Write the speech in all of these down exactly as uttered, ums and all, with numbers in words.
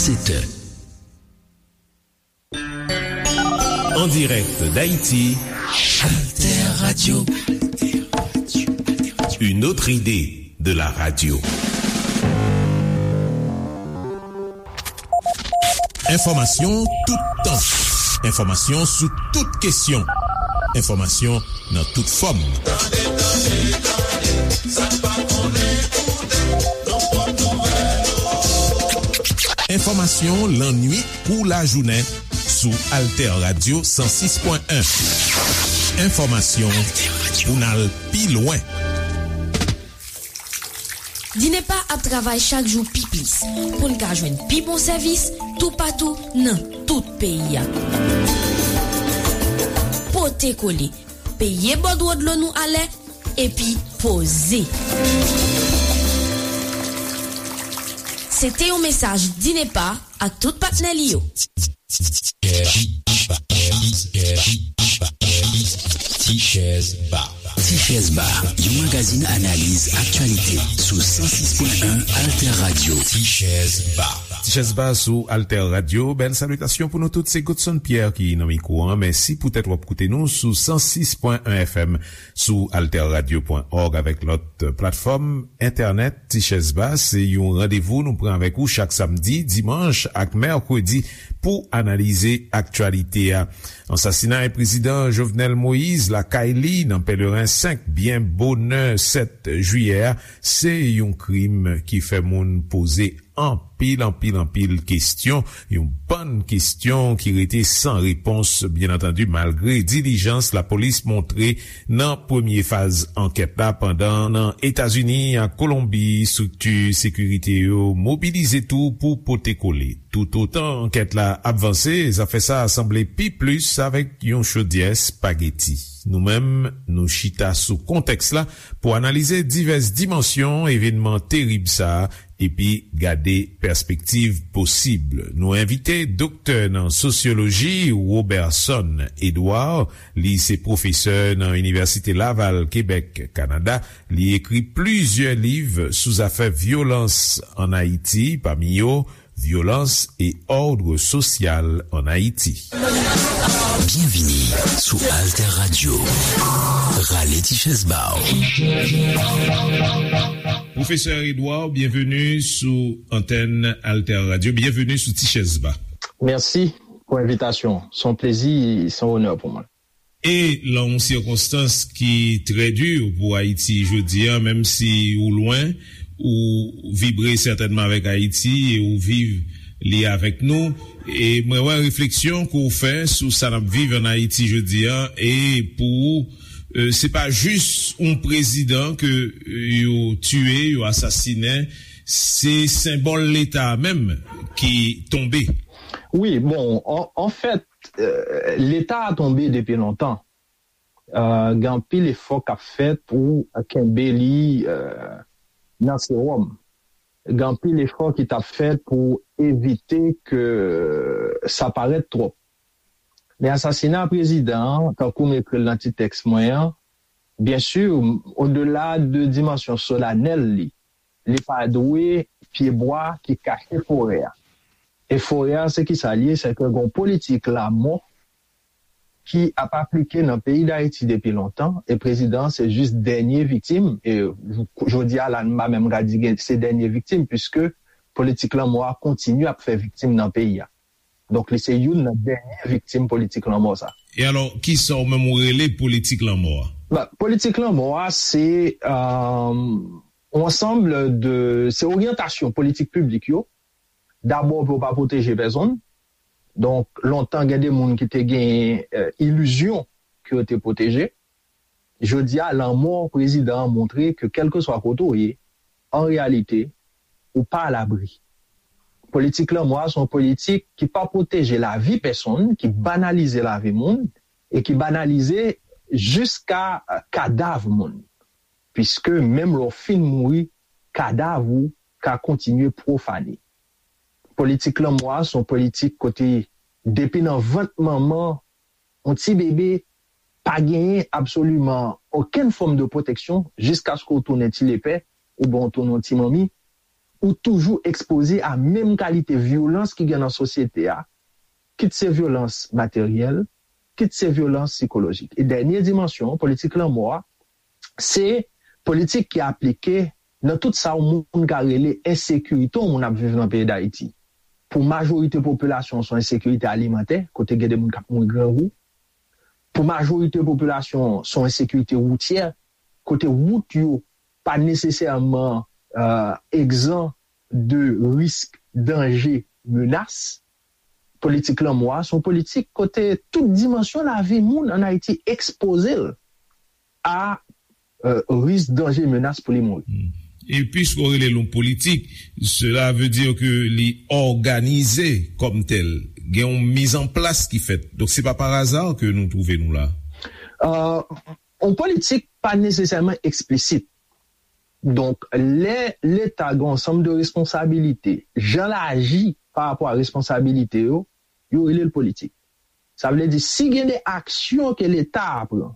Sept heures. En direct d'Haïti, Alter Radio. Une autre idée de la radio. Enfòmasyon toutan. Enfòmasyon sou tout kesyon. Enfòmasyon nan tout fòm. Tande, tande, tande, sa n pa konnen koute, nan pwòp nouvèl. Enfòmasyon lannuit kou lajounen sou Alter Radio san sis pwen en. Enfòmasyon pou n al pi lwen. Dinepa ap travay chak jou pi plis pou n ka jwenn pi bon sèvis toupatou nan tout peyi a. Pote kole, peye bòdwo dlo nou alè, epi poze. Se te yon mesaj Dinepa ak tout patnè li yo. Tichèz Ba. Tichèz Ba, yon magazin analiz aktyalite sou san sis pwen en Alter Radio. Tichèz Ba. Tichèz Ba sou Alter Radio. Bèl salitasyon pou nou tout. Se Godson Pierre ki nan mikwo an. Mèsi poutèt w ap koute nou sou san sis pwen en F M, sou alter radio pwen org avèk lòt platfòm entènèt. Tichèz Ba, se yon randevou nou pran avèk ou chak samdi, dimanch ak mèkredi pou analize aktyalite a. Ansasinay prezidan Jovenel Moïse lakay li nan Pèleren senk byen bonè sèt jiyè a, se yon krim ki fè moun poze anpil, anpil, anpil kesyon, yon bann kesyon ki rete san repons, byen antandi, malgre dilijans lapolis montre nan premye faz ankèt la, pandan nan Etazini ak Kolonbi, estrikti sekirite yo mobilize tou pou pote kole. Toutotan ankèt la ap vanse, zafè sa a sanble pi plis avèk yon chodyè espageti. Nou menm, nou chita sou kontèks la pou analize divès dimansyon evènman terib sa a epi gade pèspektiv posib. Nou envite doktè nan sosyoloji Roberson Edouard. Li se pwofesè nan Inivèsite Laval, Kebèk, Kanada. Li ekri plizyè liv sou zafè vyolans ann Ayiti, pami yo Violence et ordre social en Haïti. Byenvini sou Alter Radio. Rale ti chèz ba w. Pwofesè Edouard, byenveni sou antèn Alter Radio. Byenveni sou Ti Chèz Ba. Mèsi pou envitasyon. Se yon plezi, se yon onè pou mwen. E lan yon sikonstans ki trè di pou Ayiti jodi a, menm si ou lwen, ou vibre sètènman avèk Ayiti e ou viv li avèk nou. E mwen wè refleksyon ke w fè sou sa n ap viv ann Ayiti jodi a, e pou ou, e, se pa jis yon prezidan ke, e, yo tiye, yo asasinen, se senbòl Leta a menm ki tonbe. Wi, bon, an, anfèt, e, Leta a tonbe depi lontan. E, gen anpil efò k ap fèt pou kenbe li, e, nan sewòm. Gen anpil efò ki t ap fèt pou evite ke sa parèt twòp. Men asasina prezidan an, tankou m ekri l nan ti tèks mwen an, byen si, odela de dimansyon solanèl li, li pa dwe pyebwa ki kache forè a. E forè a, se ki sa l ye? Se ke gen yon politik lanmò ki ap aplike nan peyi Dayiti depi lontan, e prezidan an se jis dènye viktim, e jodi a la, m pa menm ka di gen, se dènye viktim, piske politik lanmò a kontinye ap fè viktim nan peyi a. Donk, li se youn nan dènye viktim politik lanmò sa. E alò, kisa w menm ou rele politik lanmò a? Ba, politik lanmò a, se, e, yon ansanm de, se oryantasyon politik piblik yo. Dabò, pou yo pa pwoteje pèsonn. Donk, lontan, gen de moun ki te gen, e, ilizyon ke yo te pwoteje. Jodi a, lanmò prezidan an montre ke kèlkeswa kote w ye, an reyalite, ou pa alabri. Politik lanmò a se yon politik ki pa pwoteje lavi pèsonn, ki banalize lavi moun, e ki banalize jiska, e, kadav moun. Piske menm lè w fin mouri, kadav ou ka kontinye pwofane. Politik lanmò a se yon politik kote depi nan vant manman, yon ti bebe pa genyen absoliman okenn fòm de pwoteksyon jiskaske w tounen ti lepè oubyen w tounen yon ti manmi, ou toujou ekspoze a menm kalite vyolans ki gen nan sosyete a, kit se vyolans materyèl, kit se vyolans sikolojik. E dènye dimansyon, politik lanmò a, se politik ki aplike nan tout sa yon moun ka rele ensekirite yon moun ap viv nan peyi Dayiti. Pou majorite popilasyon, se yon ensekirite alimantè, kote gen de moun k ap mouri grangou. Pou majorite popilasyon, se yon ensekirite woutyè, kote wout yo pa nesesèman uh, egzan de risk, danje, menas. Politik lanmò a se yon politik kote tout dimansyon lavi moun ann Ayiti ekspoze l a uh, risk, danje, menas pou li mouri. Hmm. E piske w rele l yon politik, cela veut dire que li òganize kòm tèl. Gen yon mizanplas ki fèt. Donk, se pa pa aza ke nou twouve nou la. Uh, yon politik pa nesesèman eksplisit. Donk, lè Leta gen yon ansanm de responsabilite, jan l aji pa rapò a responsabilite yo, yo rele l politik. Sa vle di, si gen de aksyon ke Leta a pran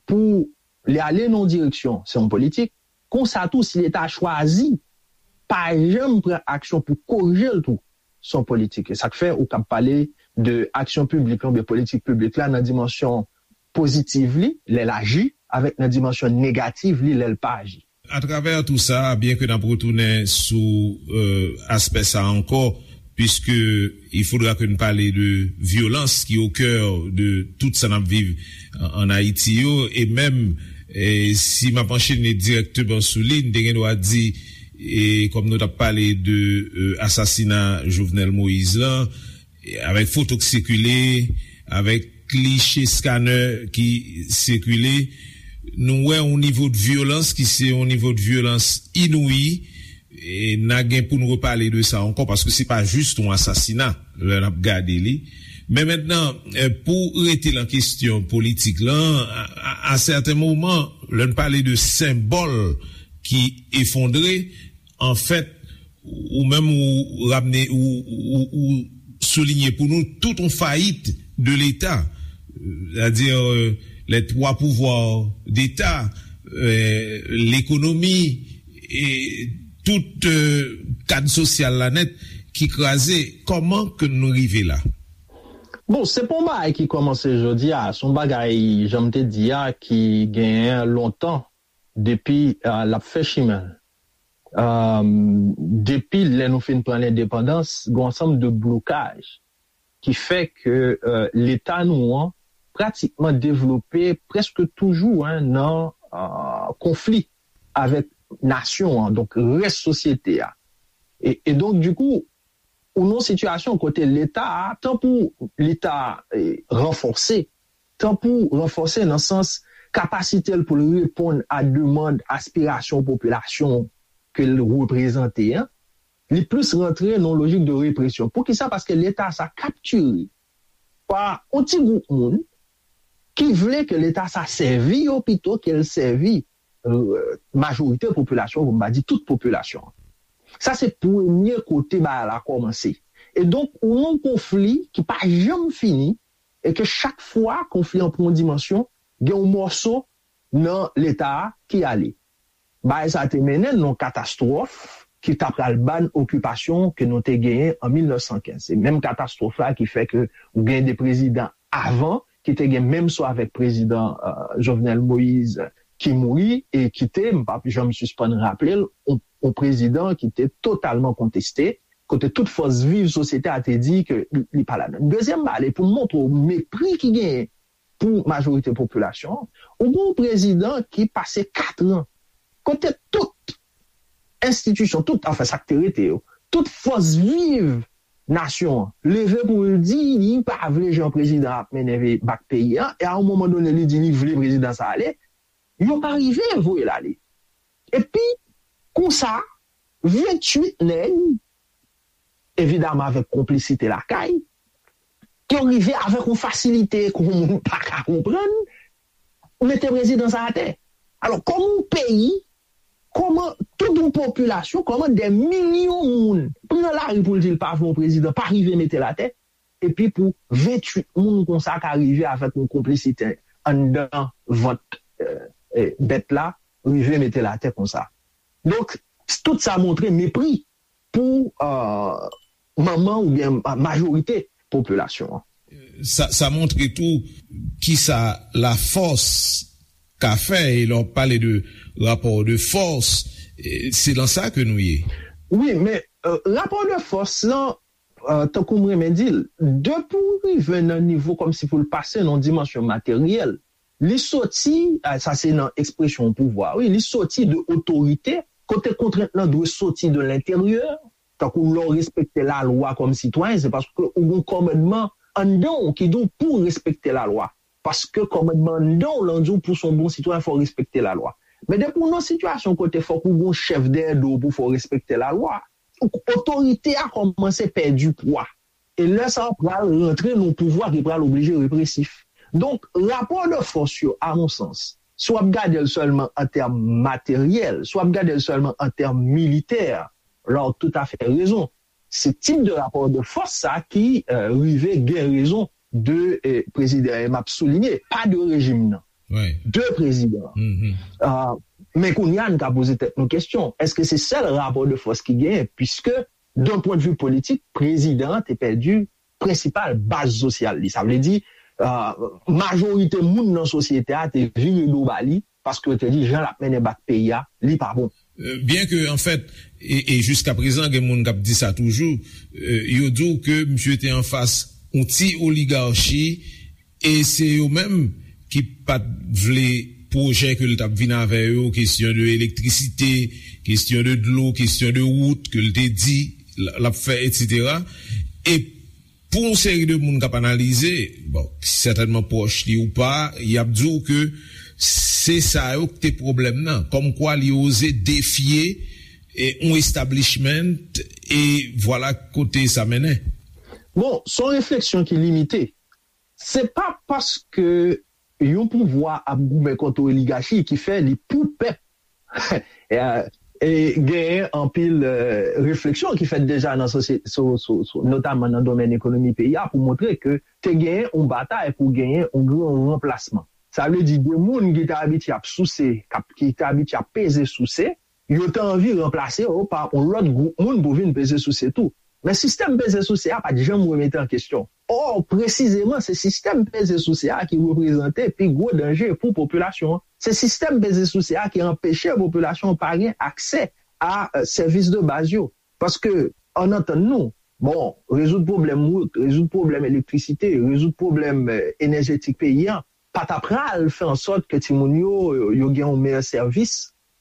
pou li ale nan yon direksyon, se yon politik. Konsa tou, si Leta a chwazi pa janm pran aksyon pou korije l tou, se yon politik. E sa k fè ou kab pale de aksyon piblik la oubyen politik piblik la nan dimansyon pozitiv li, lè l aji, avèk nan dimansyon negativ li, lè l pa aji. Atravè tou sa, byen ke n ap retounen sou euh, aspè sa ankò, puisque il faudra que nous parler de violence qui est au cœur de tout sa n ap viv en Haïti yo, e menm e si m ap anchene dirèkteman sou li, n te gen dwa di e kòm nou t ap pale de euh, asasina Jovenel Moïse lan, avèk foto k sikile, avèk kliche scanner ki sikile, nou wè yon nivo de vyolans ki se yon nivo de vyolans inouyi, e n a gen pou n repale de sa ankò, paske se pa jis yon asasina lè n ap gade li. Men mentnan, pou rete nan kesyon politik lan, a sèten moman, lè n pale de senbòl ki efondre, anfèt, ou menm ou ramne ou, ou, ou soulinye pou nou tout yon fayit de Leta, c'est-à-dire euh, les trois pouvoirs d'État, euh, l'économie et tout euh, kad sosyal la nèt ki kraze. Kòman ke nou rive la? Bon, se pa yon bagay ki kòmanse jodi a, se yon bagay, jan m te di a, ki genyen lontan depi uh, l ap fè chimen l. Depi lè nou fin pran lendepandans, gen yon ansanm de blokaj ki fè ke Leta nou an pratikman devlope prèske toujou nan konfli avèk nasyon an, donk rès sosyete a. E donk, dikou, ou nan yon sitiyasyon kote Leta a, tan pou li ta ranfòse, tan pou ranfòse nan sans kapasite l pou l reponn a demann, aspirasyon popilasyon ke l reprezante an, li plis rantre nan yon lojik de represyon. Poukisa? Paske Leta sa kaptire pa yon ti gwoup moun ki vle ke Leta sa sèvi yo pito ke l sèvi majorite popilasyon, pou m pa di tout popilasyon. Sa se premye kote bagay la kòmanse. E donk, ou nan yon konfli ki pa janm fini, e ke chak fwa konfli an pran yon dimansyon, gen yon mòso nan Leta a ki ale. Bagay sa te mennen n nan yon katastwòf ki ta pral ban okipasyon ke nou te genyen an mil nèf san kenz. Se menm katastwòf la ki fè ke ou gen de prezidan avan ki te gen menm so avèk prezidan Jovenel Moïse ki mouri e ki te, m p ap janm sispann raple l, yon prezidan ki te totalman konteste, kote tout fòs viv sosyete a te di ke li pa ladan. Dezyèm bagay, pou m montre w mepri ki genyen pou majorite popilasyon an, ou gen yon prezidan ki pase katran kote tout enstitisyon, tout, anfen, sa k te rete yo, tout fòs viv nasyon an leve pou l di li pa vle jan prezidan ap mennen bak peyi a, e a yon moman done li di li vle prezidan sa ale, yo pa rive voye l ale. Epi, konsa, venntuit nèg, evidaman avèk konplisite lakay, yo rive avèk yon fasilite ke yon moun pa ka konprann, mete prezidan sa atè. Alò, kòman yon peyi, kòman tout yon popilasyon, kòman dè milyon moun pran lari pou l di l pa vle yon prezidan, pa rive mete l atè, epi pou venntuit moun konsa ka rive avèk yon konplisite anndan vant bèt la, rive mete l atè konsa. Donk, Tout sa montre mepri pou euh, manman oubyen majorite popilasyon an. Sa, sa montre tou kisa lafòs ka fè, e lè w pale de rapò de fòs, se nan sa ke nou ye. Wi, men euh, rapò de fòs lan, euh, tankou m renmen di l, depi w rive nan nivo kòmsi pou l pase nan dimansyon materyèl, li soti, sa se nan ekspresyon pouvwa, wi, li soti de otorite, kote kontrent lan dwe soti de lenteryè, tankou lè w respekte lalwa kòm sitwayen, se paske ou gen kòmandman anndan w ki di w pou w respekte lalwa. Paske kòmandman anndan w lan di w pou w se yon bon sitwayen, fò w respekte lalwa. Men depi w nan sitiyasyon kote fòk ou gen yon chèf dèyè do w pou fè w respekte lalwa, otorite a kòmanse pèdi pwa. E lè sa a pral rantre nan yon pouvwa ki pral oblije represif. Donk, rapò de fòs yo, a mon sans, si w ap gade l sèlman an tèm materyèl, si w ap gade l sèlman an tèm militè, la w toutafè rezon. Se tip de rapò de fòs sa ki euh, rive gen rezon de euh, prezidan e m ap soulinye, pa de rejim nan, de prezidan. Men kounye a n ka poze tèt nou kesyon, èske se sèl rapò de fòs ki genyen? Piske d'un pwen de vi politik, prezidan an te pèdi prensipal baz sosyal li. Sa vle di, majorite moun nan sosyete a te vire do ba li, paske yo te di jan l ap mennen bak peyi a, li pa bon. Byen ke, anfèt, e, e jiska prezan, gen moun k ap di sa toujou, yo di w ke misye te anfas yon ti oligachi, e se yo menm ki pa t vle pwojè ke l t ap vin avè yo, kesyon de elektrisite, kesyon de dlo, kesyon de wout ke l te di l ap fè, etsetera. E pou yon seri de moun k ap analize, bon, sètènman pwòch li ou pa, y ap di w ke se sa yo k te pwoblèm nan, kòmkwa li oze defye yon establishment, e vwala kote sa mennen. Bon, se yon refleksyon ki limite. Se pa paske yon pouvwa ap goumen kont yon oligachi ki fè li pou pèp. E genyen anpil refleksyon ki fèt deja nan sosyete, notaman nan domèn ekonomi peyi a, pou montre ke te genyen yon batay pou genyen yon gran ranplasman. Sa vle di de moun ki te abitye ap souse, ki te abitye ap peze souse, yo te anvi ranplase yo pa yon lòt gwoup moun pou vin peze souse tou. Men sistèm peze souse a pa t janm remete an kesyon. Ò, presizeman, se sistèm peze souse a ki reprezante pi gwo danje pou popilasyon an. Se sistèm peze souse a ki anpeche popilasyon an pa gen aksè a sèvis de baz yo. Paske, ann antann nou, bon, rezoud pwoblèm wout, rezoud pwoblèm elektrisite, rezoud pwoblèm enèjetik peyi a, pa ta pral fè an sòt ke timoun yo, yo gen yon meyè sèvis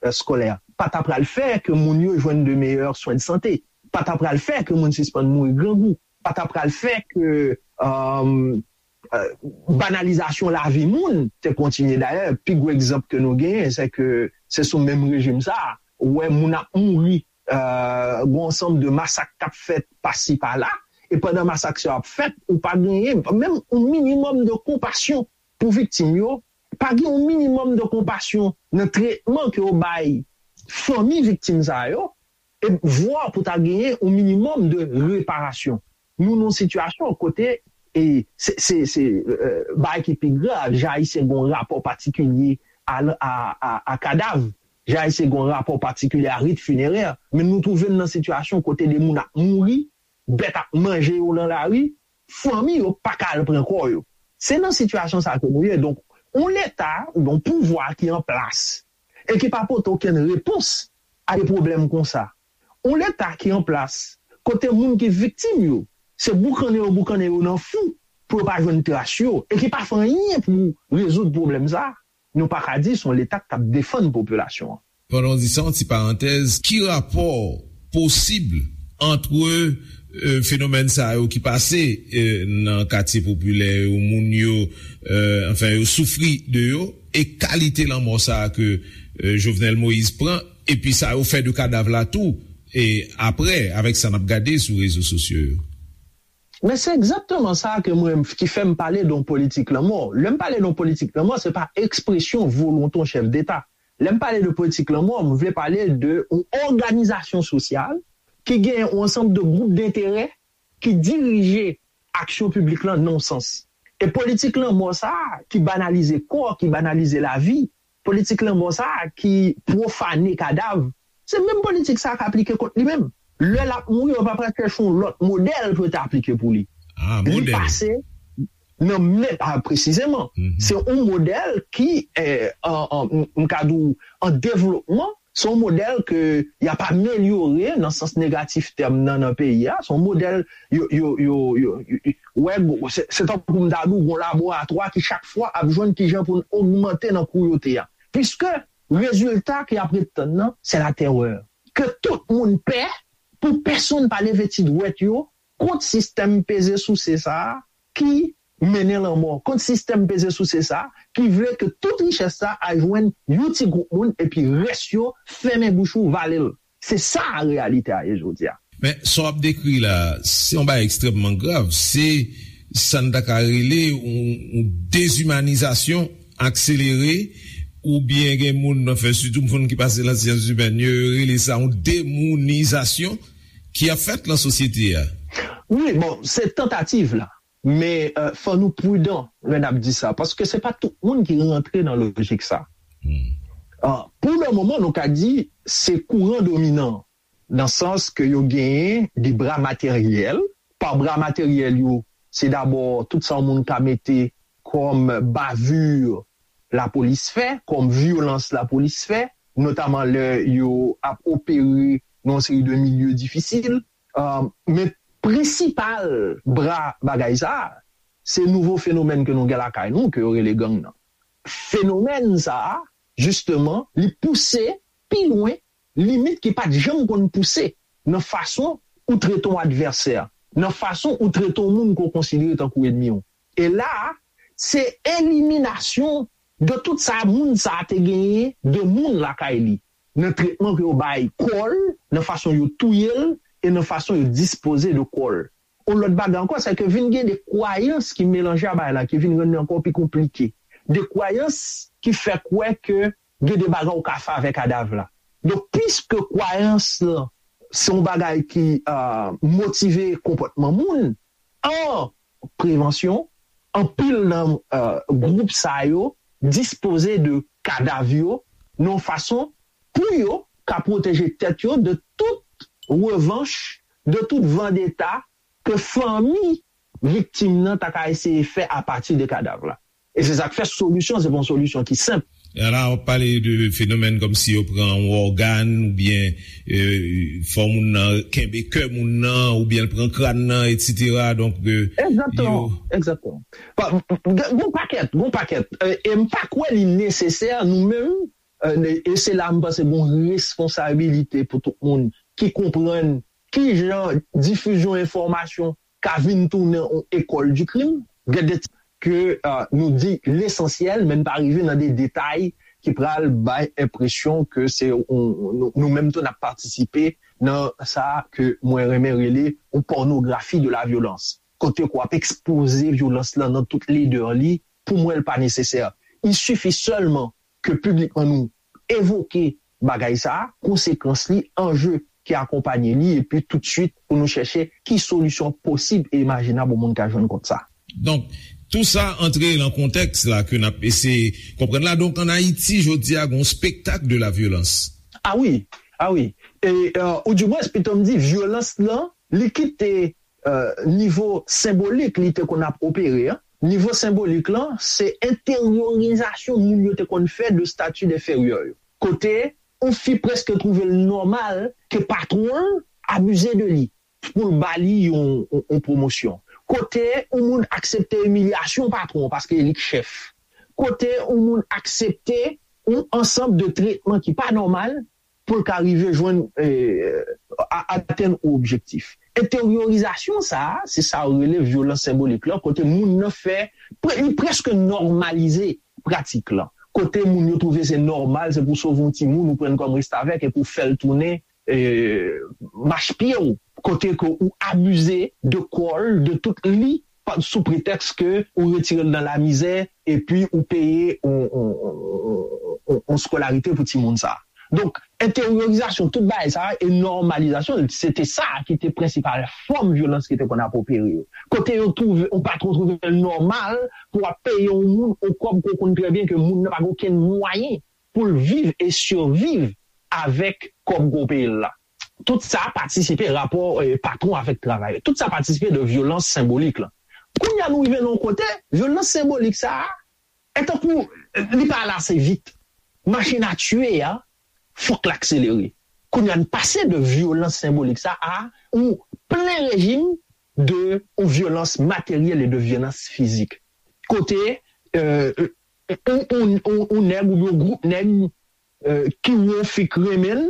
eskolè. Pa ta pral fè ke moun yo jwenn de meyè swen de sante. Pa ta pral fè ke moun sispann mouri grangou. Pa ta pral fè ke banalizasyon lavi moun te kontinye. Dayè, pi gwo egzanp ke nou genyen, se ke se sou menm rejim sa a, ou wè moun ap mouri, gen yon ansanm de masak k ap fèt pasi pala, e pandan masak sa yo ap fèt, ou pa genyen menm yon minimòm de konpasyon pou viktim yo, pa gen yon minimòm de konpasyon nan tretman ke yo bay fanmi viktim sa yo, e vwa pou ta genyen yon minimòm de reparasyon. Nou nan yon sitiyasyon kote, e se, se, se bagay ki pi grav, jan Ayisyen gen yon rapò patikilye a, a, a, a kadav, jan Ayisyen gen yon rapò patikilye a rit finerè, men nou twouve n nan sitiyasyon kote de moun ap mouri, bèt ap manje yo nan lari, fanmi yo pa ka al pran kò yo. Se nan sitiyasyon sa ke nou ye. Donk, yon leta oubyen yon pouvwa ki an plas e ki pa pote okenn repons a de pwoblèm konsa. Yon leta ki an plas kote moun ki viktim yo, se boukannen yo boukannen yo nan fou pou yo pa jwenn tras yo e ki pa fè anyen pou rezoud pwoblèm sa, nou pa ka di se yon leta k ap defann popilasyon an. Pandan w di sa, yon ti parantèz, ki rapò posib ant fenomèn sa yo ki pase nan katye popilè yo, moun yo, anfen, yo soufri de yo, e kalite lanmò sa a ke Jovenel Moïse pran, epi sa yo fè de kadav la tou, e apre, avèk sa n ap gade sou rezo sosyo yo? Men se egzakteman sa ke mwen ki fè m pale de yon politik lanmò. Lè m pale de yon politik lanmò, se pa ekspresyon volonte yon chèf deta. Lè m pale de politik lanmò, m vle pale de yon òganizasyon sosyal ki gen yon ansanm de gwoup denterè ki dirije aksyon piblik lan nan yon sans. E politik lanmò sa a ki banalize kò, ki banalize lavi, politik lanmò sa a ki pwofane kadav, Se menm politik sa a k aplike kont li menm. Lè l ap mouri, yo pa pral chèche yon lòt modèl pou yo te aplike pou li. Li pase nan men, a, presizeman. Se yon modèl ki, eh, an, an, m, m ka di w, an devlopman, se yon modèl ke y ap amelyore nan sans negatif tèm nan, nan peyi a. Se yon modèl yo, yo, yo, yo, yo, yo, wè, se, se tankou m ta di w, yon laboratwa ki chak fwa ap jwenn kijan pou n ogmante nan kouyote a. Piske rezilta ke y ap ret tann nan, se latèrè. Ke tout moun pè, pou pèsonn pa leve ti dwèt yo kont sistèm peze souse sa a ki mennen lanmò, kont sistèm peze souse sa a ki vle ke tout richès sa a al jwenn yon ti gwoup moun epi rès yo fèmen bouch ou, vale l. Se sa reyalite a ye jodi a. Men, sa w ap dekri la, se yon bagay ekstrèmman grav. Se sa n ta ka rele yon, yon dezimanizasyon akselere, oubyen gen moun, anfen, sitou moun ki pase nan syans imèn, yo rele sa yon demounizasyon ki ap fèt nan sosyete a. Wi, bon, se tantativ la. Men, euh, fò nou pridan lè n ap di sa, paske se pa tout moun ki rantre nan lojik sa. Ah, pou le moman, nou ka di se kouran dominan, nan sans ke yo genyen de bra materyèl. Pa bra materyèl yo, se dabò tout sa yon moun ka mete kòm bavure lapolis fè, kòm vyolans lapolis fè, notaman lè yo ap opere nan yon seri de milye difisil. Ah, men prensipal bra bagay sa a, se nouvo fenomèn ke nou gen lakay nou, ke yo rele gang nan. Fenomèn sa a, jisteman, li pouse pi lwen limit ki pa t janm konn pouse nan fason ou trete yon advèsè, nan fason ou trete yon moun ke w konsidere tankou ènmi w. E la a, se eliminasyon de tout sa moun sa a te genyen de moun lakay li, nan tretman ke yo bay kò l, nan fason yo touye l, e nan fason yo dispoze de kò l. Yon lòt bagay ankò, se ke vin gen de kwayans ki melanje a bagay la, ki vin rann li ankò pi konplike. De kwayans ki fè kwè ke gen de bagay ou ka fè avèk kadav la. Donk, piske kwayans lan se yon bagay ki, euh, motive konpòtman moun, an prevansyon, anpil nan, euh, gwoup sa yo dispoze de kadav yo nan yon fason pou yo ka pwoteje tèt yo de tout revanch, de tout vandeta ke fanmi viktim nan ta ka eseye fè apati de kadav la. E se sa k fè solisyon, se pa yon solisyon ki senp. E la, w ap pale de fenomèn kòmsi yo pran yon ògàn, oubyen, euh, fè moun nan kenbe kè moun nan, oubyen l pran kràn nan, etsetera. Donk, euh, egzakteman, yo egzakteman. Pa, gen, gen pakèt, gen pakèt. Euh, e m pa kwè li nesesè, nou menm, euh, e se la m panse gen responsabilite pou tout moun ki konprann ki jan difizyon enfòmasyon ka vin tounen yon école du crime. Gen de ke, euh, nou di lesansyèl, men n pa rive nan de detay ki pral bay enpresyon ke se yon, nou, nou menm tou n ap patisipe nan sa ke mwen renmen rele yon pònografi de la vyolans. Kote ke w ap ekspoze vyolans lan nan tout ledè li, pou mwen, l pa nesesè. Il suffit seulement ke piblikman nou evoke bagay sa a, konsekans li, anje ki akonpanye li, epi toutswit pou nou chèche ki solisyon posib e imajinab yon moun ka jwenn kont sa. Donk, tou sa antre nan kontèks la ke n ap eseye konprann la. Donk, ann Ayiti, jodi a, gen yon spektak de la vyolans. A wi, a wi. E, euh, ou dimwens, pito m di, vyolans lan, li kite, euh, nivo senbolik li te konn ap opere an. Nivo senbolik lan, se enteryorizasyon moun yo te konn fè de stati enferyè yo. Kote yon fi prèske twouve l nòmal ke patwon l abize de li pou l ba li yon, yon, yon pwomosyon. Kote yon moun aksepte imilyasyon patwon paske e li k chèf. Kote yon moun aksepte yon ansanm de tretman ki pa nòmal pou l ka rive jwenn, eh, a-, atenn yon objektif. Enteryorizasyon sa a, se sa yo rele vyolans senbolik lan, kote moun nan fè, pre-, li prèske nòmalize pratik lan. Kote moun yo twouve se nòmal, se pou sove yon timoun, ou pran l kòm restavèk epi w fè l tounen, eh, mach pye w. Kote ke ou abize de kò l, de tout li, pa, sou pretèks ke ou retire l nan lamizè, epi ou peye yon, yon, yon, yon, yon skolarite pou timoun sa a. Donk, enteryorizasyon tout bagay sa a e nòmalizasyon l, se te sa ki te prensipal fòm vyolans ki te konn ap opere yo. Kote yo twouve, yon patwon twouve l nòmal pou w ap peye yon moun yon kòb ke w konn trè byen ke moun nan pa gen okenn mwayen pou l viv e siviv avèk kòb gwo peye l la. Tout sa patisipe, rapò eh, patwon avèk travayè. Tout sa patisipe de vyolans senbolik la. Kounye a nou rive nan yon kote, vyolans senbolik sa a, e tankou li pa ale ase vit. Machin a tiye a, fòk l akselere. Kounye a n pase de vyolans senbolik sa a ou plen rejim de ou vyolans materyèl e de vyolans fizik. Kote euh, ou, ou, ou, ou nèg oubyen ou gwoup nèg euh, ki wè yon fi k renmen l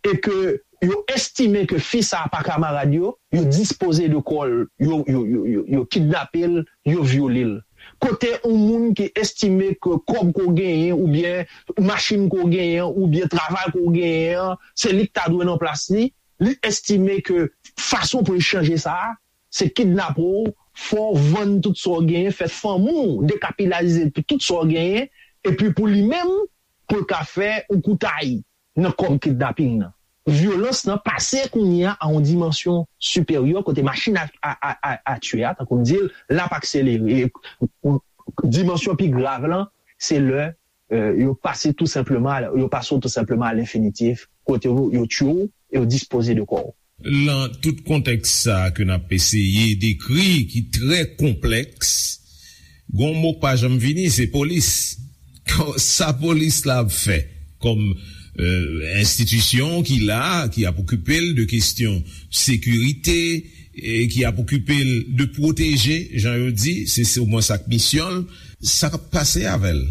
e ke yo estime ke fi sa a pa kamarad yo, yo dispoze de kò l, yo, yo, yo, yo, yo kidnape l, yo vyole l. Kote yon moun ki estime ke kòb ke w genyen, oubyen machin ke w genyen, oubyen travay ke w genyen an, se li k ta dwe nan plas li, li estime ke fason pou l chanje sa a, se kidnape w, fè w vann tout sa w genyen, fè fanmi w dekapilaze tout sa w genyen, epi pou li menm, pou l ka fè yon koutay nan kòb kidnaping nan. Vyolans nan pase kounye a a yon dimansyon siperyè kote machin a, a, a, a, a tiye a, tankou m di l, l ap akselere. E, dimansyon pi grav lan, se lè euh, yo pase tou senpleman, yo pase w tou senpleman a lenfinitif, kote yo, yo tiye w e yo dispoze de kò w. Lan tout kontèks sa a ke n ap eseye dekri, ki trè konplèks, gon mo k pa janm vini, se polis. Sa polis la ap fè kòm euh, enstitisyon ki la, ki ap okipe l de kesyon sekirite, e ki ap okipe l de pwoteje, jan yo di, se se omwen sa k misyon l, sa k ap pase avè l?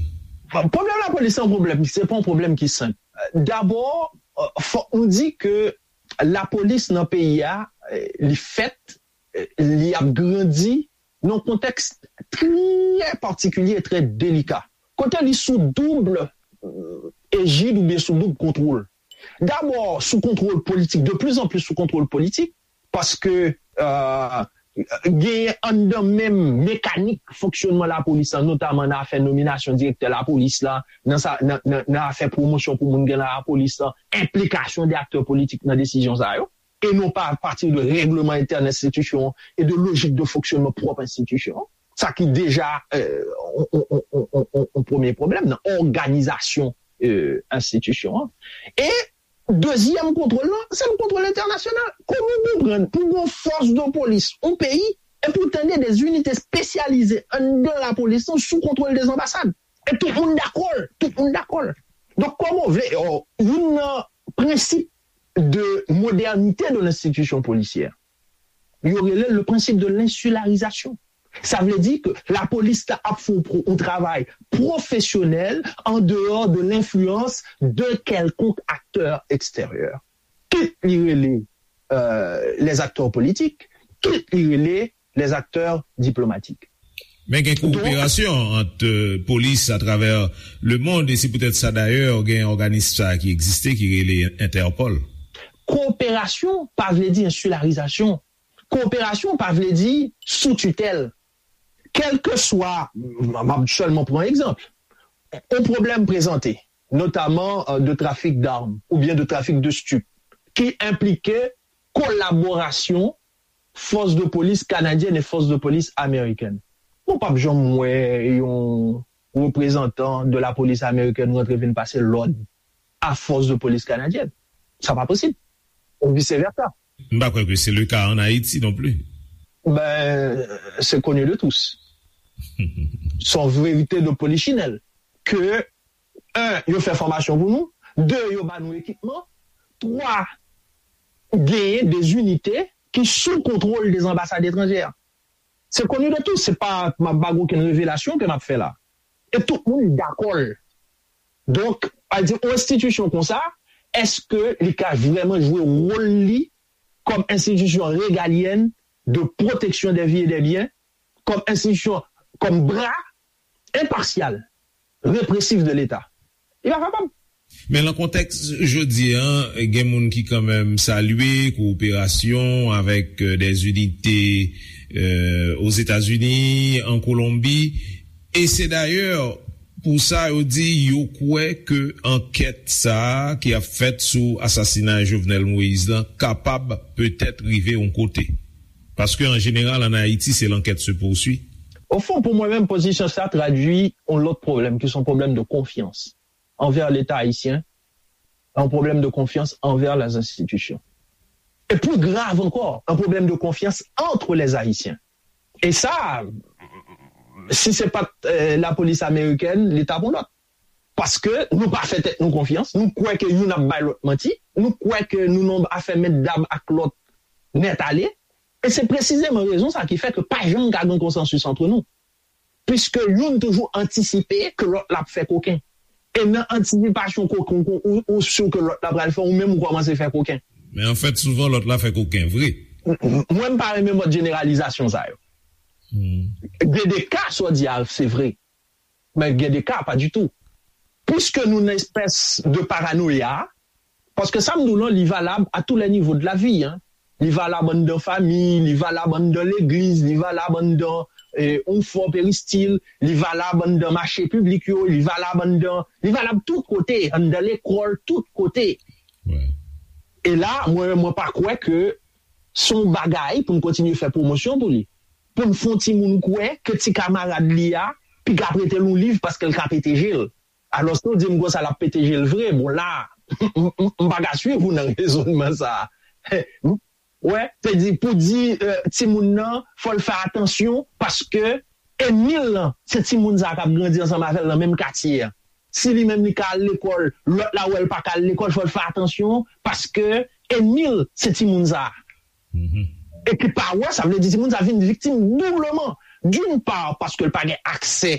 Pwoblèm lapolis se yon pwoblèm, se pa yon pwoblèm ki senp. Dabò, euh, fòk nou di ke lapolis nan peyi a, euh, li fèt, euh, li ap grandi nan yon kontèks trè patikilye e trè delika. Kote li sou doub euh, ejid oubyen sou doub kontwòl. Dabò, sou kontwòl politik, de plus en plus sou kontwòl politik, paske euh, genyen anndan menm mekanik fonksyònman lapolis lan, notaman nan afè nominasyon direktè lapolis la, nan, sa, nan, nan, nan afè pwomosyon pou moun gen nan lapolis lan, enplikasyon de aktè politik nan desizyon sa yo, e non pa apati de règleman entèn enstitisyon an e de lojik de fonksyònman pwòp enstitisyon an. Sa ki deja euh, on, on, on, on, on, on premye pwoblèm nan òganizasyon euh, enstitisyon an. E dezyèm kontwòl lan, se yon kontwòl entènasyonal. Kòman w konprann pou yon fòs de polis, yon peyi, epi w tande de zinite espesyalize anndan lapolis lan sou kontwòl de zanbasad? E tout moun dakò l, tout moun dakò l. Donk, kòman w vle, oh, youn nan prensip de modernite de lenstitisyon polisyè, yo rele l le principe de l'insularisation. Sa vle di ke lapolis la ap fè yon travay pwofesyonèl an dehors de l'influence de quelconque acteur extérieur. Kit li rele euh, les acteurs politiques, kit li rele les acteurs diplomatiques. Men gen kowoperasyon ant euh, polis atravè lemonn, e se poutèt sa dayè gen òganis sa ki egziste ki rele Entèpòl. Kowoperasyon pa vle di ensilarizasyon. Kowoperasyon pa vle di sou titèl. Kèlkeswa, m ap sèlman pran egzanp, yon pwoblèm prezante, notaman euh, de trafik dam oubyen de trafik de stip, ki enplike kolaborasyon fòs de polis kanadyèn e fòs de polis amerikèn. Mwen p ap janm wè yon reprezantan de lapolis amerikèn rantre vin pase lòd a fòs de polis kanadyèn. Sa pa posib. Ou vice versa. M pa kwè ke se le ka ann Ayiti non pli. Ben, c'est connu de tous. Se yon verite de polichinèl ke, un, yo fè fòmasyon pou nou, de, yo ba nou ekipman, twa, genyen de zinite ki sou kontwòl de zanbasad etranjè. Se connu de tous, se pa, m ap ba okenn revelasyon ke m ap fè la. E tout moun dakò l. Donk, pa di yon enstitisyon konsa, èske li ka vrèman jwe wòl li kòm enstitisyon regalyèn de pwoteksyon dè vi e dè byen, kòm enstitisyon, kòm bra enpasyal, represif de Leta? Li pa kapab. Men nan kontèks jodi a, gen moun ki kanmenm salye kowoperasyon avèk euh, des unités euh, Ozetazini, an Kolonbi, e se dayè pou sa yo di yo kwè ke ankèt sa a ki ap fèt sou asasinay Jovenel Moïse lan kapab petèt rive yon kote. Paske an jeneral, ann Ayiti, se l'enquête se poursuit. Ofon, pou mwen menm, pozisyon sa tradui yon lòt pwoblèm, ki se yon pwoblèm de konfyans anvè Leta ayisyen, un problème de confiance envers les institutions. Et plus grave encore, un problème de confiance entre les Haïtiens. Et ça, si c'est pas euh, la police américaine, l'État pour l'autre. Paske nou pa fè tèt nou konfyans, nou kwè ke youn ap bay lòt manti, nou kwè ke nou nan afè mèt dam ak lòt nèt ale. E se presizeman rezon sa ki fè ke pa janm ka gen konsansis antre nou. Piske youn toujou antisipe ke lòt la ap fè koken. E nan antisipasyon koken, ou, ou si ke lòt la pral fè, ou menm ou kòmanse fè koken. Men anfèt, souvan lòt la fè koken, vre. Mwen, m pa renmen mòd jeneralizasyon sa yo. Gen de ka, sa w di a, se vre. Men gen de ka, pa ditou. Piske nou nan espès de paranoya, paske sa m di w lan, li valab à tous les niveaux de la vie, hein. Li valab anndan fanmi, li valab anndan legliz, li valab anndan eh, yon fò peristil, li valab anndan mache piblik yo, li valab anndan, li valab tout kote, anndan lekòl, tout kote. E la, mwen, mwen pa kwè ke se yon bagay pou n kontinye fè pwomosyon pou li. Pou n fè yon timoun kwè ke ti kamarad li a piga prete l yon liv paske l ka pete je l. Alòske w di m konsa l ap pete je l vre, bon la, m pa ka swiv ou nan rezònman sa a. Wè, se di pou di timoun nan fò l fè atansyon paske enmi l lan se timoun sa k ap grandi ansanm avè l nan menm katye a. Si li menm li ka al lekòl, lòt la wè l pa ka al lekòl, fò l fè atansyon paske enmi l se timoun sa. E ki pa wè, sa vle di timoun sa vin viktim doubleman. D'une part, paske l pa gen aksè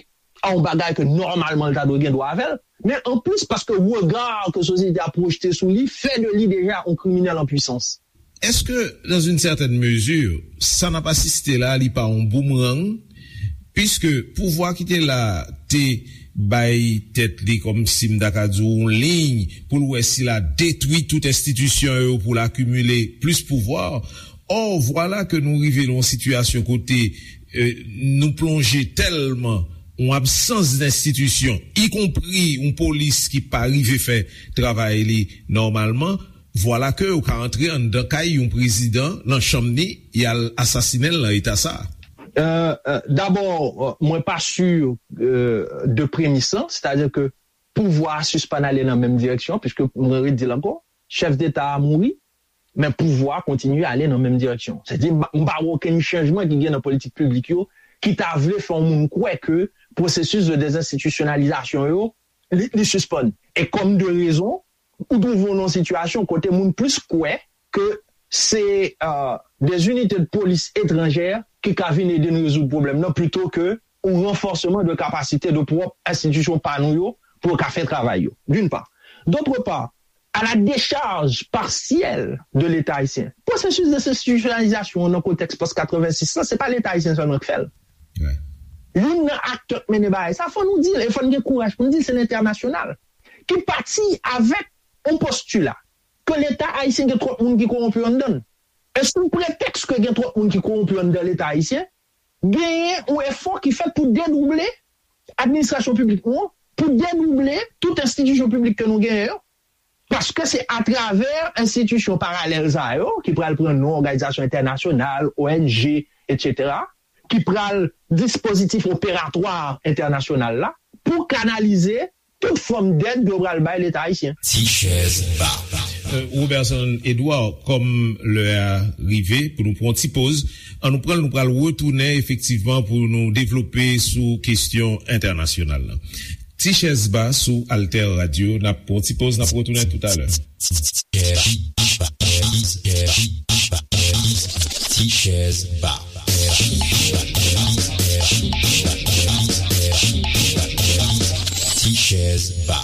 a yon bagay ke nòmalman l ta dwe gen dwa avè l, men anplis paske rega ke sosyete a pwojte sou li fè de li deja yon kriminèl an pwisans. Est-ce que, dans une certaine mesure, sa n ap asiste la, li pa yon boomerang, puisque pouvwa ki te la te bay tèt li kòmsi m ta ka di w yon liy pou l wè si l a detwi tout enstitisyon yo pou l akimile plis pouvwa. Or, vwala ke nou rive nan yon sitiyasyon kote eh, nou plonje tèlman yon absans d enstitisyon, ikonpri yon polis ki pa rive fè travay li nòmalman, vwala ke ou ka antre anndan kay yon prezidan nan chanm li, y al asasinen l nan eta sa a. Dabò, mwen pa si de premis lan, sètadi ke pouvwa a sispann ale nan menm direksyon, piske mwen redi l ankò, chèf deta a mouri, men pouvwa a kontinye ale nan menm direksyon. Sètadi, m pa wè okenn chanjman ki gen nan politik piblik yo ki ta vle fè yon moun kwè ke pwosesis de dezenstitisyonalizasyon yo, li, li sispann. E kòm de rezon, ou twouve w nan yon sitiyasyon kote moun plis kwè ke se des unités de police étrangères ki ka vin ede n rezoud pwoblèm nan, plito ke yon ranfòsman de kapasite de pwòp enstitisyon pa nou yo pou yo ka fè travay yo, d'une part. D'autre part, à la décharge partielle de l'État haïtien. Pwosesis dezenstitisyonalizasyon an nan kontèks pòs katrevensis lan, se pa Leta ayisyen sèlman k fè l. Youn nan aktè k mennen bagay sa, fò nou di l, e fò n gen kouraj pou n di l, se lentènasyonal ki pati avèk yon postila ke Leta ayisyen gen twòp moun ki kowonpi anndan l. E sou pretèks ke gen twòp moun ki kowonpi anndan Leta ayisyen, genyen yon efò ki fèt pou dedouble administrasyon piblik nou an, pou dedouble tout enstitisyon piblik ke nou genyen yo, paske se atravè enstitisyon paralèl sa yo, ki pral pran non òganizasyon entènasyonal, O N G, etsetera, ki pral dispozitif operatwa entènasyonal la, pou kanalize tout fòm dèd yo pral bay Leta ayisyen. Ti chèz ba. Roberson Edouard, kòm lè a rive pou nou pran yon ti poz, ann nou pran l, nou pral retounen efektivman pou nou devlope sou kesyon entènasyonal la. Ti chèz ba sou Alter Radio, n ap pran yon ti poz, n ap retounen toutalè. Ti chèz ba. Ti chèz ba.